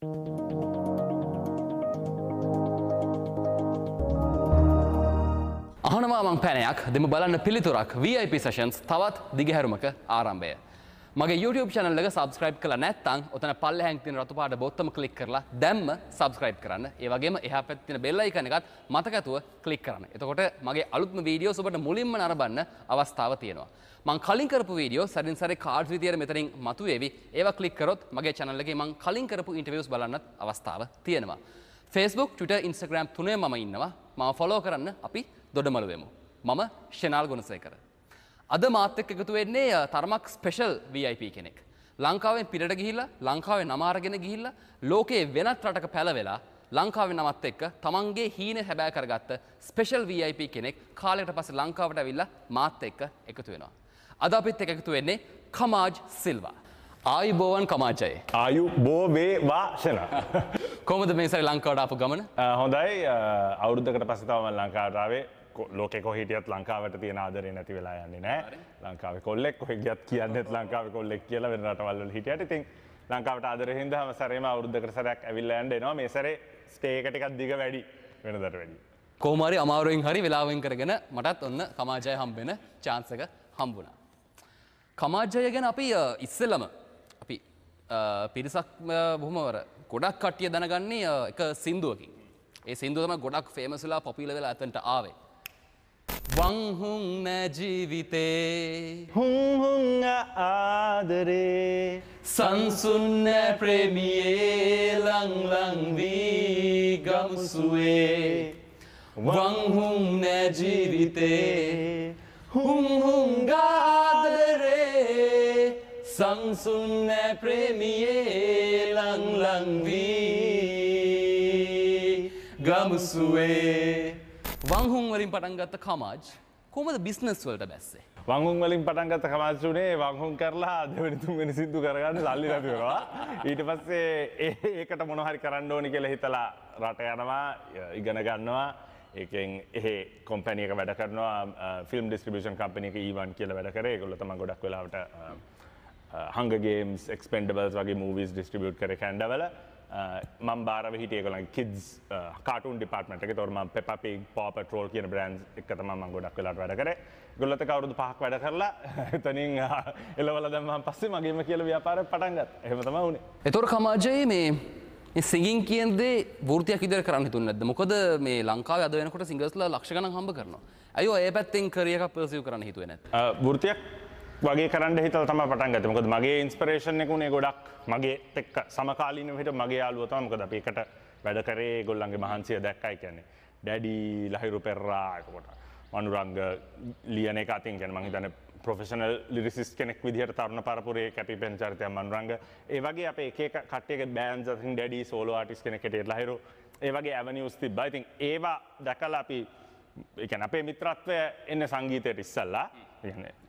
අහනවා මං පැනයක් දෙමු බලන්න පිළිතුරක් VIP sessions තවත් දිගහැරුමක ආරම්භය. මගේ YouTube channel එක subscribe කරලා නැත්නම් ඔතන පල්ලෙහාන් තියෙන රතු පාට බොත්තම ක්ලික් කරලා දැම්ම subscribe කරන්න. ඒ වගේම එහා පැත්තේ තියෙන bell icon එකත් මතක ඇතුව ක්ලික් කරන්න. එතකොට මගේ අලුත්ම වීඩියෝස් ඔබට මුලින්ම නරඹන්න අවස්ථාව තියෙනවා. මං කලින් කරපු වීඩියෝ සැරින් සැරේ කාඩ්ස් විදියට මෙතනින් මතුවේවි. ඒවා ක්ලික් කරොත් මගේ channel එකේ මං කලින් කරපු ඉන්ටර්විව්ස් බලන්නත් අවස්ථාව තියෙනවා. Facebook, Twitter, Instagram තුනේ මම ඉන්නවා. මාව ෆලෝ කරන්න අපි දොඩමළු වෙමු. මම ෂෙනාල් ගුණසේකර. අද මාත් එක්ක එකතු වෙන්නේ තරමක් ස්පෙෂල් VIP කෙනෙක්. ලංකාවෙන් පිටට ගිහිල්ලා, ලංකාවේ නම අරගෙන ගිහිල්ලා, ලෝකයේ වෙනත් රටක පැලවෙලා ලංකාවේ නමත් එක්ක තමන්ගේ හීන හැබෑ කරගත්ත ස්පෙෂල් VIP කෙනෙක් කාලයකට පස්සේ ලංකාවට ඇවිල්ලා මාත් එක්ක එකතු වෙනවා. අද අපිත් එක්ක එකතු වෙන්නේ කමාජ් සිල්වා. ආයුබෝවන් කමාජ්. ආයුබෝ වේවා ෂෙනා. කොහොමද මේ සැරේ ලංකාවට ආපු ගමන? හොඳයි. අවුරුද්දකට පස්සේ තමයි මම ලංකාවට ආවේ. ලෝකෙ කොහෙ හිටියත් ලංකාවට තියෙන ආදරේ නැති වෙලා යන්නේ නෑ. ලංකාවේ කොල්ලෙක් කොහෙ ගියත් කියන්නේත් ලංකාවේ කොල්ලෙක් කියලා වෙන රටවල් වල හිටියට. ඉතින් ලංකාවට ආදරේ හින්දා හැම සැරේම අවුරුද්දකට සැරයක් ඇවිල්ලා යන්න එනවා. මේ සැරේ ස්ටේ එක ටිකක් දිග වැඩි වෙනදට වැඩිය. කොහොම හරි අමාරුවෙන් හරි වෙලාවෙන් කරගෙන මටත් ඔන්න කමාජය හම්බෙන චාන්ස් එක හම්බුණා. කමාජය ගැන අපි ඉස්සෙල්ලම අපි පිරිසක් බොහොම ගොඩක් කට්ටිය දැනගන්නේ එක සින්දුවකින්. ඒ සින්දුව තමයි ගොඩක් ෆේමස් වෙලා පොපියුලර් වෙලා අතන්ට ආවේ. වං හුං නෑ ජීවිතේ හුං හුං ආදරේ සංසුන් නෑ ප්‍රේමියේ ලං ලං වී ගමුසුවේ වං හුං නෑ ජීවිතේ හුං හුං ආදරේ සංසුන් නෑ ප්‍රේමියේ ලං ලං වී ගමුසුවේ. වං හුං වලින් පටන් ගත්ත කමාජ් කොහොමද බිස්නස් වලට බැස්සේ? වං හුං වලින් පටන් ගත්ත කමාජ් උනේ වං හුං කරලා දෙවෙනි තුන්වෙනි සින්දු කරගන්න සල්ලි නැති වෙනවා. ඊට පස්සේ ඒකට මොන හරි කරන්න ඕනි කියලා හිතලා රට යනවා, ඉගෙන ගන්නවා. ඒකෙන් එහෙ කම්පැනි එක වැඩ කරනවා, ෆිල්ම් ඩිස්ට්‍රිබියුෂන් කම්පැනි එක E1 කියලා වැඩ කරේ. ඒගොල්ලෝ තමයි ගොඩක් වෙලාවට Hunger Games, Expendables වගේ මූවිස් ඩිස්ට්‍රිබියුට් කරේ කැනඩාවල. මම බාරව හිටියේ ඒගොල්ලන්ගේ කිඩ්ස් කාටූන් ඩිපාර්ට්මන්ට් එකේ. ඒතකොට මම Peppa Pig, Paw Patrol කියන බ්‍රෑන්ඩ්ස් එක තමයි මම ගොඩක් වෙලාවට වැඩ කරේ. ඒගොල්ලොත් එක්ක අවුරුදු 5ක් වැඩ කරලා එතනින් එලවලා දැම්මම පස්සේ මගේම කියලා ව්‍යාපාරයක් පටන් ගත්තා. එහෙම තමයි වුනේ. ඒතකොට කමාජේ මේ සිංගින් කියන දේ වෘත්තියක් විදියට කරන්න හිතුන්නේ නැද්ද? මොකද මේ ලංකාවේ අද වෙනකොට සිංගර්ස්ලා ලක්ෂ ගණන් හම්බ කරනවා. ඇයි ඔය ඒ පැත්තෙන් කරියර් එකක් පර්සිව් කරන්න හිතුවේ නැත්තේ? වෘත්තියක් වගේ කරන්න හිතලා තමයි පටන් ගත්තේ. මොකද මගේ ඉන්ස්පිරේෂන් එක උනේ ගොඩක් මගේත් එක්ක සමකාලීනව හිටපු මගේ යාළුවෝ තමයි. මොකද අපි එකට වැඩ කරේ, ඒගොල්ලන්ගේ මහන්සිය දැක්කයි. කියන්නේ ඩැඩි, ලහිරු පෙරරා, එතකොට මනුරංග ලියන එක අතින් කියන්නේ මං හිතන්නේ ප්‍රොෆෙෂනල් ලිරිසිස්ට් කෙනෙක් විදිහට තරුණ පරපුරේ කැපිපෙන චරිතයක් මනුරංග. ඒ වගේ අපේ එක එක කට්ටියගේ බෑන්ඩ්ස් අතින් ඩැඩි සෝලෝ ආටිස්ට් කෙනෙක් හැටියට ලහිරු, ඒ වගේ ඇවනියුස් තිබ්බා. ඉතින් ඒවා දැකලා අපි ඒ කියන්නේ අපේ මිත්‍රත්වය එන්නේ සංගීතයට ඉස්සල්ලා.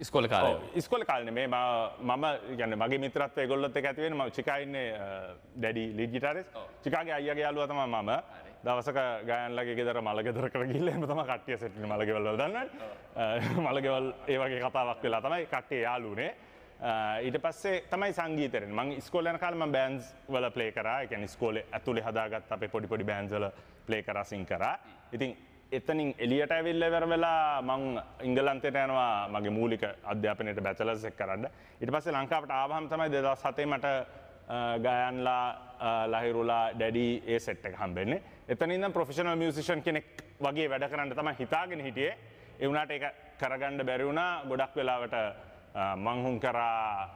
ඉස්කෝලේ කාලේ. ඔව්, ඉස්කෝලේ කාලේ නෙමෙයි. මම කියන්නේ මගේ මිත්‍රත්වය ඒගොල්ලොත් එක්ක ඇති වෙන්නේ. මම චිකා ඉන්නේ ඩැඩි ලීඩ් ගිටාරිස්ට්. චිකාගේ අයියාගේ යාළුවා තමයි මම. දවසක ගයන්ලගේ ගෙදර මල ගෙදරකට ගිහිල්ලා එහෙම තමයි කට්ටිය සෙට් වෙන්නේ. මල ගෙවල් වල දන්නවනේ. මල ගෙවල් ඒ වගේ කතාවක් වෙලා තමයි කට්ටිය යාළු වුනේ. ඊට පස්සේ තමයි සංගීතය එන්නේ. මං ඉස්කෝලේ යන කාලේ මං බෑන්ඩ්ස් වල ප්ලේ කරා. ඒ කියන්නේ ඉස්කෝලේ ඇතුලේ හදාගත්ත අපේ පොඩි පොඩි බෑන්ඩ්ස් වල ප්ලේ කරා, සිං කරා. ඉතින් එතනින් එළියට ඇවිල්ලා ඉවර වෙලා මං එංගලන්තයට යනවා මගේ මූලික අධ්‍යාපනයට බැචලර්ස් එක කරන්න. ඊට පස්සේ ලංකාවට ආවහම තමයි 2007 මට ගයන්ලා, ලහිරුලා, ඩැඩි ඒ සෙට් එක හම්බෙන්නේ. එතන ඉඳන් ප්‍රොෆෙෂනල් මියුසිෂියන් කෙනෙක් වගේ වැඩ කරන්න තමයි හිතාගෙන හිටියේ. ඒ වුණාට ඒක කරගන්න බැරි වුණා. ගොඩක් වෙලාවට මං හුම් කරා,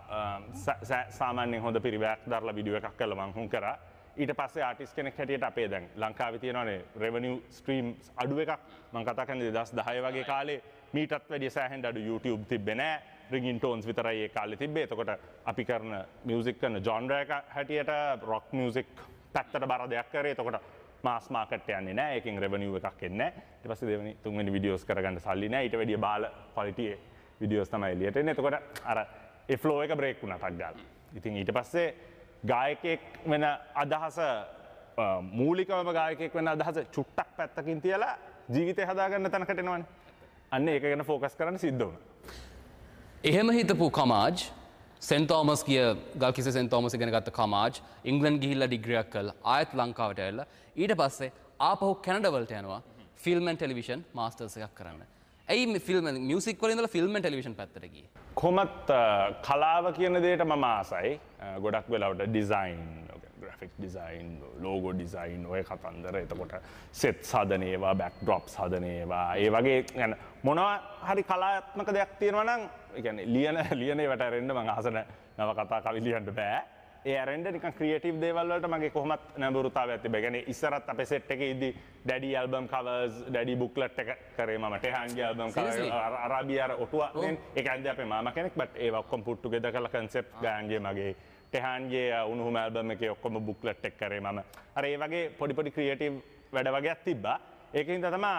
සාමාන්‍යයෙන් හොඳ පිරිවැයක් දරලා වීඩියෝ එකක් කරලා මං හුම් කරා. ඊට පස්සේ ආටිස්ට් කෙනෙක් හැටියට අපේ දැන් ලංකාවේ තියෙනවානේ රෙවෙනියු ස්ට්‍රීම්ස් අඩු එකක්. මං කතා කරන්නේ 2010 වගේ කාලේ මීටත් වැඩිය සෑහෙන අඩු YouTube තිබ්බේ නෑ. රින්ගින් ටෝන්ස් විතරයි ඒ කාලේ තිබ්බේ. එතකොට අපි කරන මියුසික් කරන ජොන්ර් එක හැටියට රොක් මියුසික් පැත්තට බර දෙයක් කරේ. එතකොට මාස් මාකට් යන්නේ නෑ. ඒකෙන් රෙවෙනියු එකක් එන්නේ නෑ. ඊට පස්සේ දෙවෙනි තුන්වෙනි වීඩියෝස් කරගන්න සල්ලි නෑ. ඊට වැඩිය බාල ක්වොලිටි වීඩියෝස් තමයි එළියට එන්නේ. එතකොට අර ඒ ෆ්ලෝ එක බ්‍රේක් වුණා ටක් ගාලා. ඉතින් ඊට පස්සේ ගායකයෙක් වෙන අදහස, මූලිකවම ගායකයෙක් වෙන අදහස චුට්ටක් පැත්තකින් තියලා ජීවිතය හදාගන්න තැනකට එනවනේ. අන්න ඒක ගැන ෆෝකස් කරන්න සිද්ධ වුණා. එහෙම හිතපු කමාජ් සෙන්ට් තෝමස් ගිය ගල්කිස්සේ සෙන්ට් තෝමස් ඉගෙන ගත්ත කමාජ් ඉංග්ලන්ඩ් ගිහිල්ලා ඩිග්‍රියක් කරලා ආයෙත් ලංකාවට ඇවිල්ලා ඊට පස්සේ ආපහු කැනඩා වලට යනවා ෆිල්ම් ඇන්ඩ් ටෙලිවිෂන් මාස්ටර්ස් එකක් කරන්න. ඇයි මේ ෆිල්ම් මියුසික් වල ඉඳලා ෆිල්ම් ඇන්ඩ් ටෙලිවිෂන් පැත්තට ගියේ? කොහොමත් කලාව කියන දේට මම ආසයි. ගොඩක් වෙලාවට design, graphic design, logo design ඔය කතන්දර. එතකොට සෙට්ස් හදන ඒවා, බැක්ඩ්‍රොප්ස් හදන ඒවා, ඒ වගේ يعني මොනවා හරි කලාත්මක දෙයක් තියෙනවා නම් ඒ කියන්නේ ලියන ලියන ඒවට ඇරෙන්න මං ආස නෑ. නව කතා කවි ලියන්න බෑ. ඒ ඇරෙන්න නිකන් ක්‍රියේටිව් දේවල් වලට මගේ කොහොමත් නැඹුරුතාවයක් තිබ්බා. ඒ කියන්නේ ඉස්සරත් අපේ සෙට් එකේ ඉද්දි ඩැඩි ඇල්බම් කවර්ස්, ඩැඩි බුක්ලට් එක කරේ මම. ටෙහාන්ගේ ඇල්බම් කවර්, අරාබිය අර ඔටුව නේ. ඒක ඇන්දේ අපේ මාමා කෙනෙක්. බට් ඒවා ඔක්කොම පුට් ටුගෙදර් කරලා කන්සෙප්ට් ගායන්ගේ මගේ ටෙහාන්ගේ උණුහුම ඇල්බම් එකේ ඔක්කොම බුක්ලට් එක කරේ මම. අර ඒ වගේ පොඩි පොඩි ක්‍රියේටිව් වැඩ වගේක් තිබ්බා. ඒකින්ද තමයි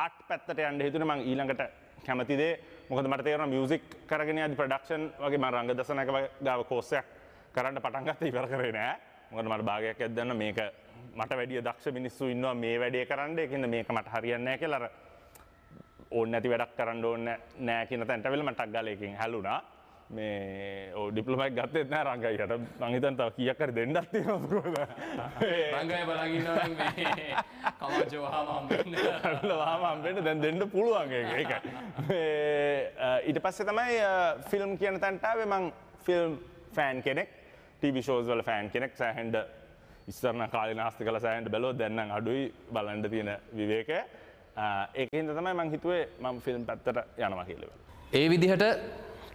ආර්ට් පැත්තට යන්න හිතුනේ මං ඊළඟට කැමති දේ. මොකද මට තේරුණා මියුසික් කරගෙන යද්දි ප්‍රොඩක්ෂන් වගේ මං රංගදසනක ගාව කෝස් එකක් කරන්න පටන් ගත්තා, ඉවර කරේ නෑ. මොකද මට භාගයක් ඇද්දන්න මේක මට වැඩිය දක්ෂ මිනිස්සු ඉන්නවා මේ වැඩේ කරන්න. ඒකින්ද මේක මට හරියන්නේ නෑ කියලා අර ඕනේ නැති වැඩක් කරන්න ඕනේ නෑ කියන තැනට ඇවිල්ලා මට ටක් ගාලා ඒකෙන් හැලුණා. මේ ඔව් ඩිප්ලෝමා එකක් ගත්තෙත් නෑ රංගයියට. මං හිතන්නේ තව කීයක් හරි දෙන්නත් තියෙනවද කොහොමද? රංගය බලන් ඉන්නවා නම් මේ කමාජෝ වහාම හම්බෙන්න. වහාම හම්බෙන්න දැන් දෙන්න පුළුවන් ඒක. ඒකයි. මේ ඊට පස්සේ තමයි ෆිල්ම් කියන තැනට ආවේ. මං ෆිල්ම් ෆෑන් කෙනෙක්. ටීවී ෂෝස් වල ෆෑන් කෙනෙක්. සෑහෙන්න ඉස්සර නම් කාලේ නාස්ති කළා සෑහෙන්න බැලුවොත් දැන් නම් අඩුයි බලන්න තියෙන විවේකය. ඒකින්ද තමයි මං හිතුවේ මං ෆිල්ම් පැත්තට යනවා කියලා. ඒ විදිහට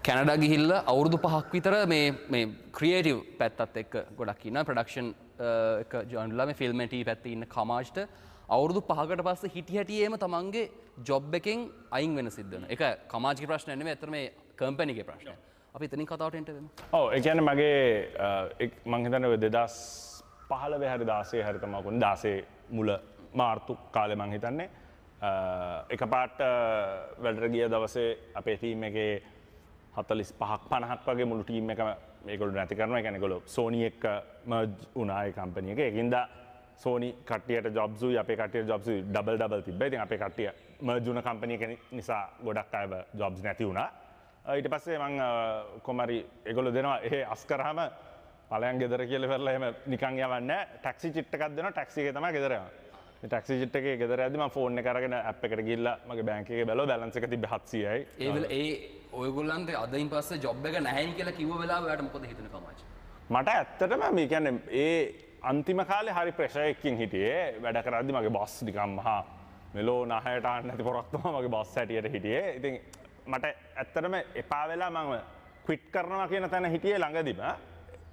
කැනඩා ගිහිල්ලා අවුරුදු 5ක් විතර මේ මේ ක්‍රියේටිව් පැත්තත් එක්ක ගොඩක් ඉන්නවා. ප්‍රොඩක්ෂන් එක ජොයින් වෙලා මේ ෆිල්ම් ඇන්ඩ් ටීවී පැත්තේ ඉන්න කමාජ්ට අවුරුදු 5කට පස්සේ හිටි හැටියේම තමන්ගේ ජොබ් එකෙන් අයින් වෙන සිද්ධ වෙනවා. ඒක කමාජ්ගේ ප්‍රශ්නයක් නෙමෙයි, ඇත්තටම මේ කම්පැනි එකේ ප්‍රශ්නයක්. අපි එතනින් කතාවට එන්න වෙමු. ඔව්, ඒ කියන්නේ මගේ මං හිතන්නේ ඔය 2015 හරි 16 හරි තමයි කොහොමද 16 මුල මාර්තු කාලේ මං හිතන්නේ එකපාරට වැඩට ගිය දවසේ අපේ ටීම් එකේ 45ක් 50ක් වගේ මුළු ටීම් එකම මේගොල්ලෝ නැති කරනවා. ඒ කියන්නේ ඒගොල්ලෝ සෝනි එක්ක මර්ජ් වුණා ඒ කම්පැනි එක. ඒකින්ද සෝනි කට්ටියට ජොබ්ස් උයි අපේ කට්ටියට ජොබ්ස් උයි ඩබල් ඩබල් තිබ්බා. ඉතින් අපේ කට්ටිය මර්ජ් වුණ කම්පැනි එක නිසා ගොඩක් අයව ජොබ්ස් නැති වුණා. ඊට පස්සේ මං කොහොම හරි ඒගොල්ලෝ දෙනවා එහෙ අස් කරාම ඵලයන් ගෙදර කියලා ඉවරලා එහෙම නිකන් යවන්නේ නැහැ. ටැක්සි චිට් එකක් දෙනවා. ටැක්සි එකේ තමයි ගෙදර යන්නේ. මේ ටැක්සි චිට් එකේ ගෙදර යද්දි මං ෆෝන් එක අරගෙන ඇප් එකට ගිහිල්ලා මගේ බැංක් එකේ බැලුවා බැලන්ස් එක තිබ්බේ 700යි. ඒ වෙල ඒ ඔයගොල්ලන්ට අදින් පස්සේ ජොබ් එක නැහැයි කියලා කිව්ව වෙලාව ඔයාට මොකද හිතුනේ කමාජ්? මට ඇත්තටම මේ කියන්නේ ඒ අන්තිම කාලේ හරි ප්‍රෙෂර් එකකින් හිටියේ. වැඩ කරද්දි මගේ බොස් නිකන් මහා මෙලෝ නහයට ආන්න නැති පොරක් තමයි මගේ බොස් හැටියට හිටියේ. ඉතින් මට ඇත්තටම එපා වෙලා මම ක්විට් කරනවා කියන තැන හිටියේ ළඟදිම.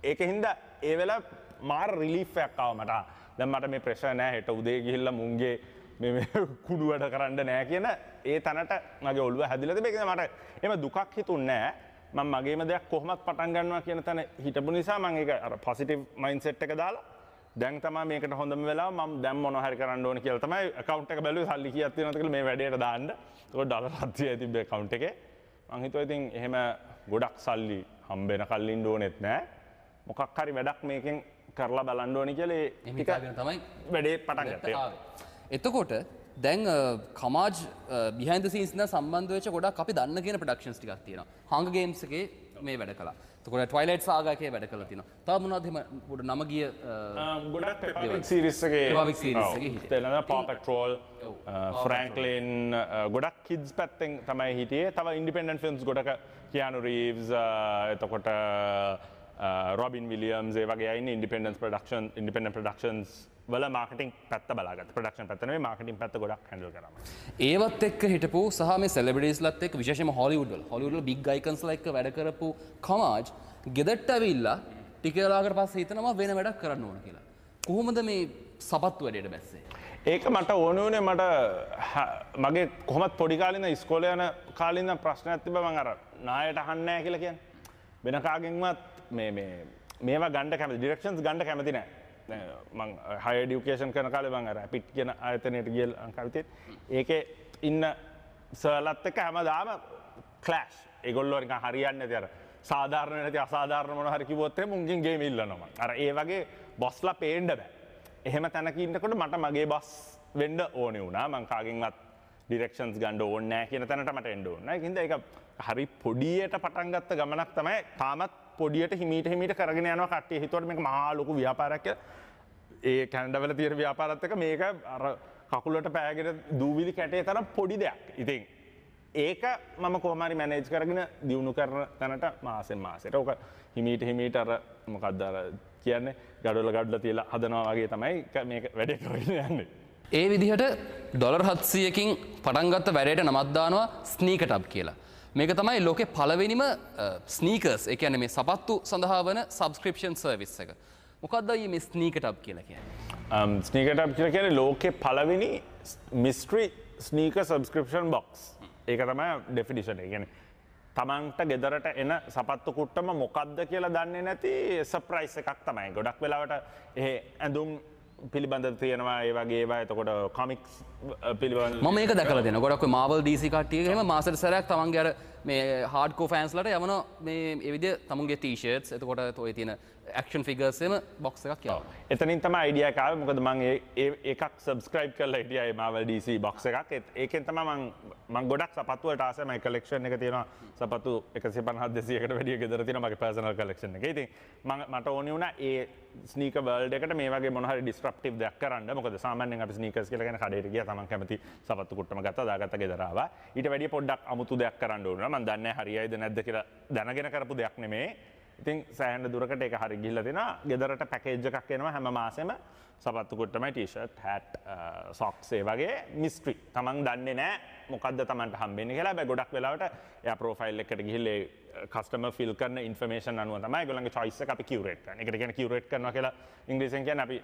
ඒක හින්දා ඒ වෙලාව මාර රිලීෆ් එකක් ආවා මට. දැන් මට මේ ප්‍රෙෂර් නෑ, හෙට උදේ ගිහිල්ලා මුන්ගේ මේ මේ කුඩු වැඩ කරන්න නෑ කියන ඒ තැනට මගේ ඔළුව හැදිලා තිබේ. ඒක මට එහෙම දුකක් හිතුන්නේ නෑ. මම මගේම දෙයක් කොහොමත් පටන් ගන්නවා කියන තැන හිටපු නිසා මම ඒක අර පොසිටිව් මයින්ඩ්සෙට් එක දාලා දැන් තමයි මේකට හොඳම වෙලාව, මම දැන් මොනවා හරි කරන්න ඕන කියලා තමයි ඇකවුන්ට් එක බැලුවේ සල්ලි කීයක් තියෙනවද කියලා මේ වැඩේට දාන්න. ඒකෝ ඩොලර් 700යි තිබ්බේ ඇකවුන්ට් එකේ. මං හිතුවා ඉතින් එහෙම ගොඩක් සල්ලි හම්බෙන කල් ඉන්න ඕනෙත් නෑ. මොකක් හරි වැඩක් මේකෙන් කරලා බලන්න ඕනි කියලා ඒ ටික තමයි වැඩේ පටන් ගත්තේ. එතකොට දැන් කමාජ් බිහයින්ඩ් ද සීන්ස් ඉඳන් සම්බන්ධ වෙච්ච ගොඩක් අපි දන්න කියන ප්‍රොඩක්ෂන්ස් ටිකක් තියෙනවා. හංගර් ගේම්ස් එකේ මේ වැඩ කළා. එතකොට ට්වයිලයිට් සාගා එකේ වැඩ කළා තියෙනවා. තව මොනවද එහෙම පොඩ නම ගිය ගොඩක් පෙපා පිග් සීරීස් එකේ පෙපා පිග් සීරීස් එකේ හිටියේ. තේරෙනවද? පා පැට්‍රෝල්, ෆ්‍රැන්ක්ලින් ගොඩක් කිඩ්ස් පැත්තෙන් තමයි හිටියේ. තව ඉන්ඩිපෙන්ඩන්ට් ෆිල්ම්ස් ගොඩක කියානු රීව්ස්, එතකොට රොබින් විලියම්ස් ඒ වගේ අය ඉන්නේ ඉන්ඩිපෙන්ඩන්ට් ප්‍රොඩක්ෂන්, ඉන්ඩිපෙන්ඩන්ට් ප්‍රොඩක්ෂන්ස් වල මාකටිං පැත්ත බලාගත්තා. ප්‍රොඩක්ෂන් පැත්ත නෙවෙයි මාකටිං පැත්ත ගොඩක් හැන්ඩල් කරා. ඒවත් එක්ක හිටපු සහ මේ සෙලිබ්‍රිටිස්ලත් එක්ක විශේෂයෙන්ම හොලිවුඩ් වල, හොලිවුඩ් වල බිග් අයිකන්ස්ලා එක්ක වැඩ කරපු කමාජ් ගෙදරට ඇවිල්ලා ටික වෙලාවකට පස්සේ හිතනවා වෙන වැඩක් කරන්න ඕන කියලා. කොහොමද මේ සපත්තු වැඩේට බැස්සේ? ඒක මට ඕන වුණේ මට මගේ කොහොමත් පොඩි කාලේ ඉඳන් ඉස්කෝලේ යන කාලේ ඉඳන් ප්‍රශ්නයක් තිබ්බා. මං අර නායට අහන්නේ නැහැ කියලා කියන්නේ. වෙන කාගෙන්වත් මේ මේ මේවා ගන්න කැමති, ඩිරෙක්ෂන්ස් ගන්න කැමති නෑ. දැන් මං හයර් එඩියුකේෂන් කරන කාලේ මං අර ඇපිට් කියන ආයතනයට ගිය ලංකාවේ තියෙන. ඒකේ ඉන්න සර්ලත් එක්ක හැමදාම ක්ලෑෂ්. ඒගොල්ලෝ නිකන් හරියන්නේ නැති අර සාධාරණ නැති අසාධාරණ මොන හරි කිව්වොත් එහෙම උන්ගෙන් ගේම් ඉල්ලනවා මං. අර ඒ වගේ බොස්ලා පේන්න බෑ. එහෙම තැනක ඉන්නකොට මට මගේ බොස් වෙන්න ඕනේ වුණා. මං කාගෙන්වත් ඩිරෙක්ෂන්ස් ගන්න ඕනේ නෑ කියන තැනට මට එන්න ඕනේ. ඒකින්ද ඒක හරි පොඩියට පටන් ගත්ත ගමනක් තමයි. තාමත් පොඩියට හිමීට හිමීට කරගෙන යනවා කට්ටිය හිතුවට මේක මහා ලොකු ව්‍යාපාරයක් කියලා. ඒ කැනඩාවල තියෙන ව්‍යාපාරත් එක්ක මේක අර කකුලට පෑගෙන දූවිලි කැටේ තරම් පොඩි දෙයක්. ඉතින් ඒක මම කොහොම හරි මැනේජ් කරගෙන දියුණු කරන තැනට මාසෙන් මාසෙට ඕක හිමීට හිමීට අර මොකද්ද අර කියන්නේ ගඩොල ගඩොල තියලා හදනවා වගේ තමයි මේක වැඩේ කරගෙන යන්නේ. ඒ විදිහට ඩොලර් 700කින් පටන් ගත්ත වැඩේට නමක් දානවා ස්නීකර් ටබ් කියලා. මේක තමයි ලෝකේ පළවෙනිම ස්නීකර්ස්, ඒ කියන්නේ මේ සපත්තු සඳහා වන සබ්ස්ක්‍රිප්ෂන් සර්විස් එක. මොකක්ද අයියේ මේ ස්නීකර් ටබ් කියලා කියන්නේ? ස්නීකර් ටබ් කියලා කියන්නේ ලෝකේ පළවෙනි මිස්ටරි ස්නීකර් සබ්ස්ක්‍රිප්ෂන් බොක්ස්. ඒක තමයි ඩෙෆිනිෂන් එක. ඒ කියන්නේ තමන්ට ගෙදරට එන සපත්තු කුට්ටම මොකක්ද කියලා දන්නේ නැති සර්ප්‍රයිස් එකක් තමයි. ගොඩක් වෙලාවට එහෙ ඇඳුම් පිළිබඳ තියෙනවා ඒ වගේ ඒවා. එතකොට කොමික්ස් පිළිබඳ මම මේක දැකලා තියෙනවා. ගොඩක් ඔය Marvel DC කට්ටිය එහෙම මාසෙට සැරයක් තමන්ගේ අර මේ හાર્ඩ්කෝර් ෆෑන්ස්ලාට යවන මේ ඒ විදිය තමුන්ගේ ටී-ෂර්ට්ස්, එතකොට ඔය තියෙන ඇක්ෂන් ෆිගර්ස් එහෙම බොක්ස් එකක් යවනවා. එතනින් තමයි අයිඩියා එක ආවේ. මොකද මං ඒ එකක් සබ්ස්ක්‍රයිබ් කරලා හිටියා ඒ Marvel DC box එකක්. ඒකෙන් තමයි මං ගොඩක් සපත්තු වලට ආසයි. මගේ කලෙක්ෂන් එක තියෙනවා සපත්තු 150 200කට වැඩිය ගෙදර තියෙනවා මගේ පර්සනල් කලෙක්ෂන් එක. ඉතින් මට ඕනේ වුණා ඒ ස්නීකර් වර්ල්ඩ් එකට මේ වගේ මොන හරි ඩිස්රප්ටිව් දෙයක් කරන්න. මොකද සාමාන්‍යයෙන් අපි ස්නීකර්ස් කියලා කියන්නේ කඩේට ගියා තමන් කැමති සපත්තු කුට්ටම ගත්තා දාගත්තා ගෙදර ආවා. ඊට වැඩිය පොඩ්ඩක් අමුතු දෙයක් කරන්න ඕන වුණා. මං දන්නේ නැහැ හරියයිද නැද්ද කියලා දැනගෙන කරපු දෙයක් නෙමෙයි. ඉතින් සෑහෙන දුරකට ඒක හරි ගිහිල්ලා තිනවා. ගෙදරට පැකේජ් එකක් එනවා හැම මාසෙම සපත්තු කුට්ටමයි ටී-ෂර්ට්, හැට්, සොක්ස් ඒ වගේ මිස්ටරි. තමන් දන්නේ නැහැ මොකද්ද තමන්ට හම්බෙන්නේ කියලා. හැබැයි ගොඩක් වෙලාවට එයා ප්‍රොෆයිල් එකට ගිහිල්ලා ඒ කස්ටමර් ෆිල් කරන ඉන්ෆර්මේෂන් අනුව තමයි ඒගොල්ලන්ගේ චොයිස් එක අපි කියුරේට් කරන්නේ. ඒකට කියන්නේ කියුරේට් කරනවා කියලා ඉංග්‍රීසියෙන් කියන්නේ අපි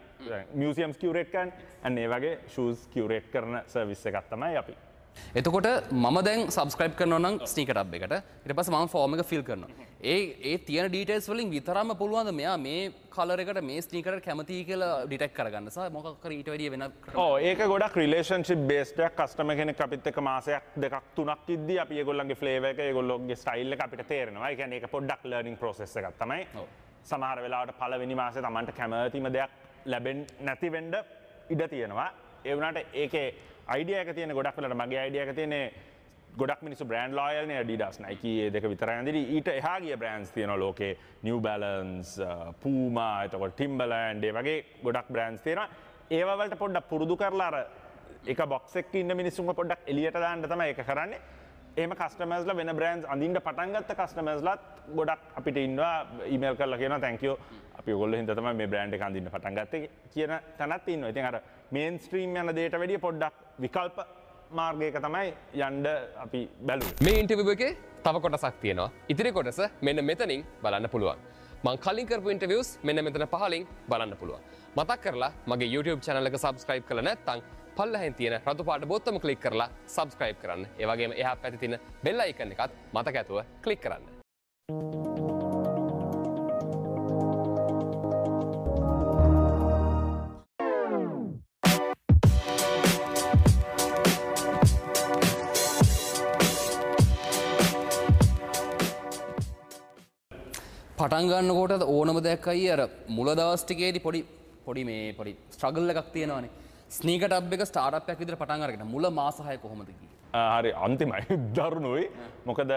මියුසියම්ස් කියුරේට් කරන්නේ. අන්න ඒ වගේ ෂූස් කියුරේට් කරන සර්විස් එකක් තමයි අපි. එතකොට මම දැන් සබ්ස්ක්‍රයිබ් කරනවා නම් ස්නීකර් ටබ් එකට. ඊට පස්සේ මම ෆෝම් එක ෆිල් කරනවා. ඒ තියෙන ඩීටේල්ස් වලින් විතරම පුළුවන් ද මෙයා මේ කලර් එකට මේ ස්නීකර් එකට කැමතියි කියලා ඩිටෙක්ට් කරගන්න සහ මොකක් හරි ඊට වැඩිය වෙන ක්‍රම. ඔව්, ඒක ගොඩක් රිලේෂන්ෂිප් බේස්ඩ් එකක්. කස්ටමර් කෙනෙක් අපිත් එක්ක මාසයක් දෙකක් තුනක් ඉද්දී අපි ඒගොල්ලන්ගේ ෆ්ලේවර් එක, ඒගොල්ලෝගේ ස්ටයිල් එක අපිට තේරෙනවා. ඒ කියන්නේ ඒක පොඩ්ඩක් ලර්නින් ප්‍රොසෙස් එකක් තමයි. සමහර වෙලාවට පළවෙනි මාසේ Tamanට කැමතිම දෙයක් ලැබෙන්නේ නැති වෙන්න ඉඩ තියෙනවා. ඒ වුණාට ඒකේ අයිඩියා එක තියෙන ගොඩක් වෙලාවට මගේ අයිඩියා එක තියෙන්නේ ගොඩක් මිනිස්සු බ්‍රෑන්ඩ් ලොයල් නේ, Adidas, Nike ඒ දෙක විතරයි අඳින්නේ. ඊට එහා ගිය බ්‍රෑන්ඩ්ස් තියෙනවා ලෝකේ, New Balance, Puma, එතකොට Timberland ඒ වගේ ගොඩක් බ්‍රෑන්ඩ්ස් තියෙනවා. ඒවා වලට පොඩ්ඩක් පුරුදු කරලා අර එක බොක්ස් එකක ඉන්න මිනිස්සුන්ව පොඩ්ඩක් එළියට දාන්න තමයි ඒක කරන්නේ. එහෙම කස්ටමර්ස්ලා වෙන බ්‍රෑන්ඩ්ස් අඳින්න පටන් ගත්ත කස්ටමර්ස්ලාත් ගොඩක් අපිට ඉන්නවා ඊමේල් කරලා කියනවා thank you අපි ඔයගොල්ලෝ හින්දා තමයි මේ බ්‍රෑන්ඩ් එක අඳින්න පටන් ගත්තේ කියන තැනත් ඉන්නවා. ඉතින් අර මේන් ස්ට්‍රීම් යන දෙයට වැඩිය පොඩ්ඩක් විකල්ප මාර්ගයක තමයි යන්න අපි බැලුවේ. මේ ඉන්ටර්විව් එකේ තව කොටසක් තියෙනවා. ඉතිරි කොටස මෙන්න මෙතනින් බලන්න පුළුවන්. මං කලින් කරපු ඉන්ටර්විව්ස් මෙන්න මෙතන පහලින් බලන්න පුළුවන්. මතක් කරලා මගේ YouTube channel එක subscribe කරලා නැත්නම් පල්ලෙහෙන් තියෙන රතු පාට බොත්තම ක්ලික් කරලා subscribe කරන්න. ඒ වගේම එහා පැත්තේ තියෙන bell icon එකත් මතක ඇතුව ක්ලික් කරන්න. පටන් ගන්නකොට ඕනම දෙයක් අයියේ අර මුල දවස් ටිකේදී පොඩි පොඩි මේ පොඩි ස්ට්‍රගල් එකක් තියෙනවානේ. ස්නීකර් ටබ් එක ස්ටාර්ට්අප් එකක් විදිහට පටන් අරගෙන මුල මාස 6 කොහොමද ගියේ? හරි අන්තිමයි දරුණුයි. මොකද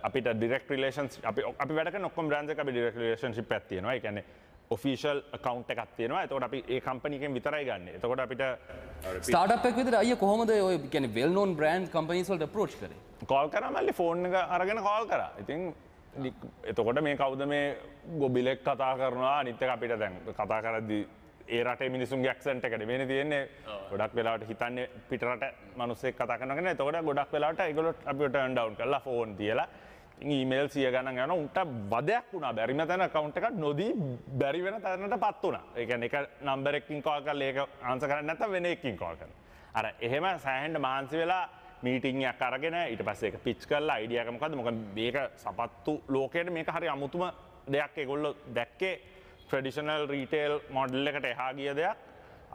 අපිට ඩිරෙක්ට් රිලේෂන්ස් අපි වැඩ කරන ඔක්කොම බ්‍රෑන්ඩ්ස් එක අපි ඩිරෙක්ට් රිලේෂන්ෂිප් එකක් තියෙනවා. ඒ කියන්නේ ඔෆිෂියල් ඇකවුන්ට් එකක් තියෙනවා. එතකොට අපි ඒ කම්පැනි එකෙන් විතරයි ගන්නෙ. එතකොට අපිට ස්ටාර්ට්අප් එකක් විදිහට අයියා කොහොමද ඔය කියන්නේ වෙල් නෝන් බ්‍රෑන්ඩ් කම්පැනිස් වලට අප්‍රෝච් කරේ? කෝල් කරා මල්ලි, ෆෝන් එක අරගෙන කෝල් කරා. ඉතින් එතකොට මේ කවුද මේ ගොබිලෙක් කතා කරනවා. අනිත් එක අපිට දැන් කතා කරද්දි ඒ රටේ මිනිසුන්ගේ ඇක්සන්ට් එක නෙමෙයිනේ තියෙන්නේ. ගොඩක් වෙලාවට හිතන්නේ පිට රට මිනිස්සෙක් කතා කරනවා කියන. එතකොට ගොඩක් වෙලාවට ඒගොල්ලෝ අපිව ටර්න් ඩවුන් කරලා ෆෝන් තියලා ඉතින් ඊමේල් 100 ගණන් යනවා. උන්ට වදයක් වුණා. බැරිම තැන ඇකවුන්ට් එකක් නොදී බැරි වෙන තැනටපත් වුණා. ඒ කියන්නේ එක නම්බර් එකකින් කෝල් කරලා ඒක ආන්සර් කරන්නේ නැත්නම් වෙන එකකින් කෝල් කරනවා. අර එහෙම සෑහෙන්න මහන්සි වෙලා මීටිං එකක් අරගෙන ඊට පස්සේ ඒක පිච් කරලා අයිඩියා එක මොකද්ද? මොකද මේක සපත්තු ලෝකයට මේක හරි අමුතුම දෙයක්. ඒගොල්ලෝ දැක්කේ ට්‍රැඩිෂනල් රීටේල් මොඩල් එකට එහා ගිය දෙයක්.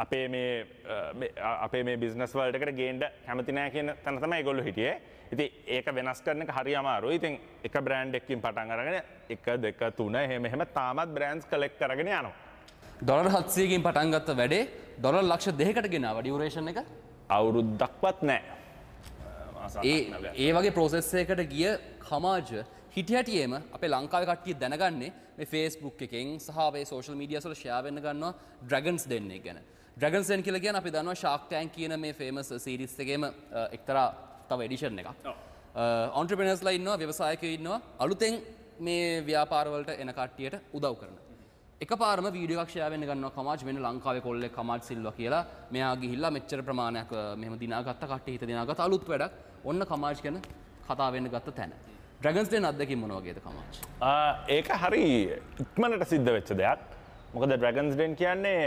අපේ මේ බිස්නස් වර්ල්ඩ් එකට ගේන්න කැමති නෑ කියන තැන තමයි ඒගොල්ලෝ හිටියේ. ඉතින් ඒක වෙනස් කරන එක හරි අමාරුයි. ඉතින් එක බ්‍රෑන්ඩ් එකකින් පටන් අරගෙන 1 2 3 එහෙම එහෙම තාමත් බ්‍රෑන්ඩ්ස් කලෙක්ට් කරගෙන යනවා. ඩොලර් 700කින් පටන් ගත්ත වැඩේ ඩොලර් ලක්ෂ 2කට ගෙනාවා ඩියුරේෂන් එක අවුරුද්දක්වත් නෑ. ඒ වගේ ප්‍රොසෙස් එකකට ගිය කමාජ හිටි හැටියේම අපේ ලංකාවේ කට්ටිය දැනගන්නේ මේ Facebook එකෙන් සහ අපේ සෝෂල් මීඩියාස් වල ෂෙයා වෙන්න ගන්නවා ඩ්‍රැගන්ස් ඩෙන් එක ගැන. ඩ්‍රැගන්ස් ඩෙන් කියලා කියන්නේ අපි දන්නවා Shark Tank කියන මේ ෆේමස් සීරීස් එකේම එක්තරා තව එඩිෂන් එකක්. ඔන්ටර්ප්‍රෙනර්ස්ලා ඉන්නවා, ව්‍යවසායකයෝ ඉන්නවා, අලුතෙන් මේ ව්‍යාපාර වලට එන කට්ටියට උදව් කරන. එකපාරම වීඩියෝ එකක් ෂෙයා වෙන්න ගන්නවා කමාජ් මෙන්න ලංකාවේ කොල්ලෙක් කමාජ් සිල්වා කියලා. මෙයා ගිහිල්ලා මෙච්චර ප්‍රමාණයක් මෙහෙම දිනාගත්ත කට්ටිය හිත දිනාගත්ත අලුත් වැඩක්. ඔන්න කමාජ් ගැන කතා වෙන්න ගත්ත තැන. ඩ්‍රැගන්ස් ඩෙන් අත්දැකීම මොන වගේද කමාජ්? ඒක හරි ඉක්මනට සිද්ධ වෙච්ච දෙයක්. මොකද ඩ්‍රැගන්ස් ඩෙන් කියන්නේ